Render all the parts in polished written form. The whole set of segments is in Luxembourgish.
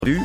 Revue.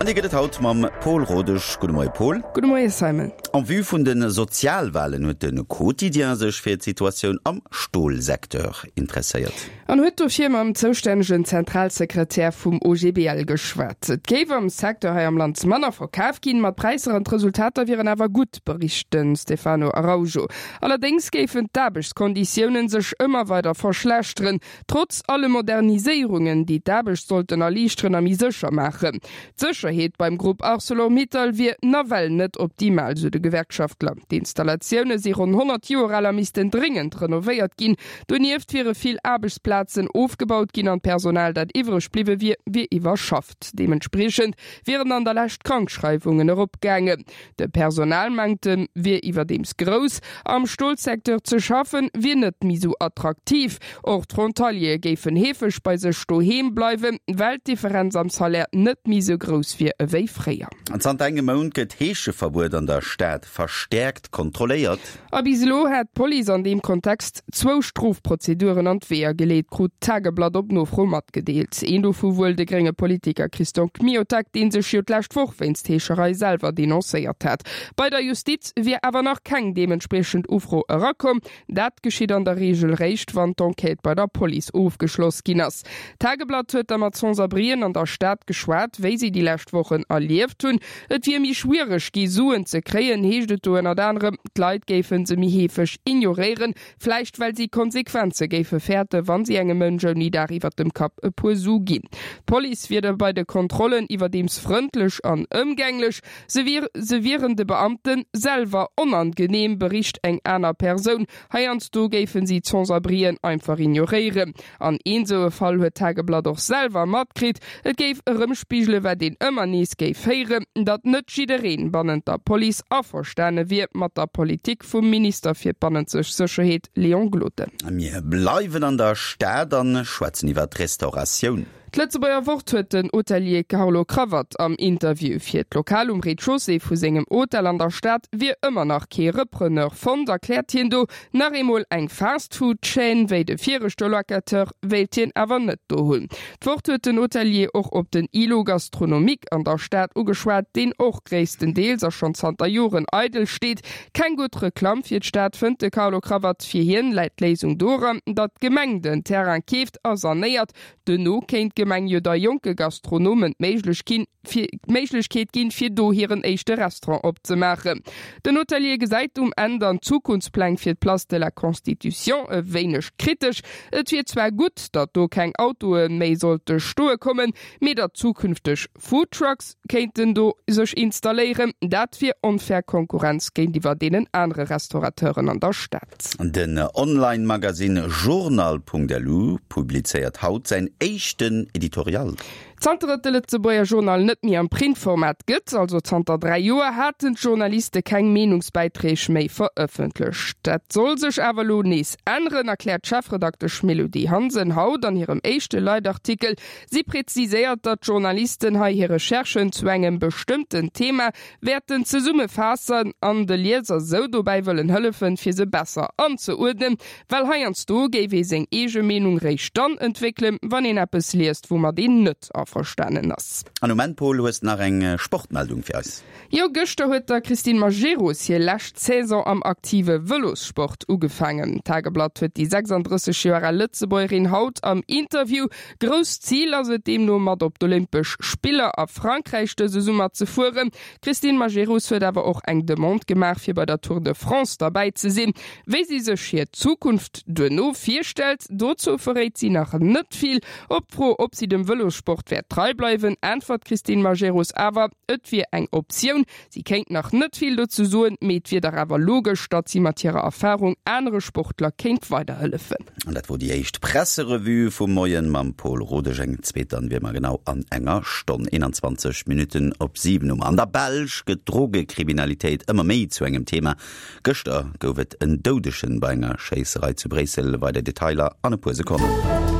An déi gëtt et haut mam Paul Rodesch. Gudde Moie Paul. Gudde Moie Simon. En vue vun de Sozialwalen huet de Quotidien sech fir d'Situatioun am Stolsecteur interesséiert. An huet dofir mam zoustännegen Zentralsekretär vum OGBL geschwat. Et géif am Secteur hei am Land manner verkaf ginn, ma d'Präisser an d'Resultater wieren awer gutt, bericht de Stefano Araujo. Allerdéngs géifen d'Aarbechtskonditiounen sech ëmmer weider verschlechteren. Trotz alle Moderniséierungen, déi d'Aarbecht sollten erliichteren a méi sécher maachen. D'Sécherheet beim Grupp Arcelor-Mittal wier nawell net optimal, sou de Gewerkschaftler. D'Installatioune si ronn 100 Joer al a missten dréngend renovéiert ginn. Donieft wiere vill Aarbechtsplazen ofgebaut ginn an d'Personal, dat iwwreg bliwwe wier, wier iwwerschafft. Deementspriechend wieren an der Lescht d'Krankschreiwungen eropgaangen. De Personalmanktem wier iwwerdeems grouss. Am Stolsecteur ze schaffen, wier net méi sou attraktiv. Och d'Frontaliere géifen heefeg bei sech doheem bleiwen, well d'Differenz am Salaire net méi sou grouss wier ewéi fréier. Zanter engem Mount gëtt d'Heescheverbuet an der Stad verstäerkt kontrolléiert. A bis elo hätt d'Police an deem Kontext zwou Strofprozeduren an d'Weeër geleet, krut d'Tageblatt op Nofro matgedeelt. Een dovu wuel de grénge Politiker Christian Kmiotek, dee sech jo d'lescht Woch wéinst Heescherei selwer denoncéiert hat. Bei der Justiz wier awer nach keng deementspriechend Ufro erakomm. Dat geschitt an der Reegel réischt, wann d'Enquête bei der Police ofgeschloss ginn ass. D'Tageblatt huet da mat Sans-abrien an der Stad geschwat, wéi si déi lescht Wochen erlieft hunn. Et wier méi schwiereg gi Suen ze kréien, heescht et do ënnert anerem. D'Leit géife se méi heefeg ignoréieren, vläicht well si Konsequenze géife fäerten, wa si engem Mënsch ouni Daach iwwer dem Kapp e puer Su ginn. D'Police wier da bei de Kontrollen iwwerdeems frëndlech an ëmgänglech. Se se wieren de Beamte selwer onangeneem, bericht eng aner Persoun. Heiansdo géife si d'Sans-abrien einfach ignoréieren. An een sou e Fall huet d'Tageblatt och selwer matkritt. Et géif erëmspigele wat een ëmmer nees géif héieren, datt net jiddereen bannent der Police averstane wier mat der Politik vum Minister fir d'bannenzeg Sécherheet Léon Gloden. Mir bleiwen an der Stad an schwätzen iwwer d'Restauratioun. D'Lëtzebuerger Wort huet den Hotelier Carlo Cravat am Interview. Fir d'Lokal um Rez-de-chaussée vu sengem Hotel an der Stad wier ëmmer nach kee Repreneur fonnt, erkläert hien do. Nach eemol eng Fast-Food-Chaîne wéi de viregte Locateur wéilt hien awer net do hunn. D'Wort huet den Hotelier och op den Îlot gastronomique an der Stad ugeschwat, deen och gréisstendeels a schonn zanter Joren eidel steet. Keng gutt Reklamm fir d'Stad, fënnt de Carlo Cravat. Fir hien läit d'Léisung doran, datt d'Gemeng den Terrain keeft a sanéiert. Duerno kéint d'Gemeng jo da jonke Gastronomen d'Méiglechkeet ginn, fir do hiren éischte Restaurant opzemaachen. Den Hotelier gesäit um Enn dann d'Zukunftspläng fir d'Place de la Constitution e wéineg kritesch. Et wier zwar gutt, datt do keng Autoe méi sollte stoe kommen, mee datt zukünfteg Foodtrucks kéinten do sech installéieren, dat wier onfair Konkurrenz géintiwwer deenen anere Restaurateuren an der Stad. Den Online-Magasinn Journal.lu publizéiert haut säin éischten Editorial. Zanter et de Lëtzebuerger Journal net méi am Printformat gëtt, also zanter 3 Joer, haten d'Journaliste keng Meenungsbäiträg méi verëffentlecht. Dat soll sech awer elo nees änneren, erkläert d'Chefredaktesch Mélodie Hansen haut an hirem éischte Leitartikel. Si präziséiert, datt d'Journalisten hei hir Recherchen zu engem bestëmmten Thema wäerten zesummefaassen an de Lieser sou dobäi wëllen hëllefen, fir se besser anzeuerdnen. Well heiansdo géif ee seng eege Meenung réischt dann entwéckelen, wann een eppes liest, woumat een net averstanen ass. An um Enn, Paul, hues nach eng Sportmeldung fir eis? Jo, gëschter huet der Christine Majerus hir lescht Saison am aktive Vëlossport ugefaangen. D'Tageblatt huet déi 36 Joer al Lëtzebuergerin haut am Interview. Grousst Zil ass et deemno mat op d'Olympesch Spiller a Frankräich dëse Summer ze fueren. D'Christine Majerus huet awer och eng Demande gemaach fir bei der Tour de France derbäi ze sinn. Wéi si sech hir Zukunft duerno virstellt, dozou verréit si nach net vill. Op d'Fro, ob si dem Vëlossport wäert trei bleiwen, äntwert d'Christine Majerus awer, et wier eng Optioun. Si kéint nach net vill dozou soen, mee et wier dach awer logesch, datt si mat hirer Erfarung anere Sportler kéint weiderhëllefen. An dat wor déi éischt Presserevue vum Moien mam Paul Rodesch. Eng zweet dann wier mer genau an enger Stonn. 21 Minutten op 7 hu mer. An der Belsch gëtt d'Drogekriminalitéit ëmmer méi zu engem Thema. Gëschter gouf et en Doudegen bei enger Schéisserei zu Bréissel. Weider Detailer an e puer Sekonnen.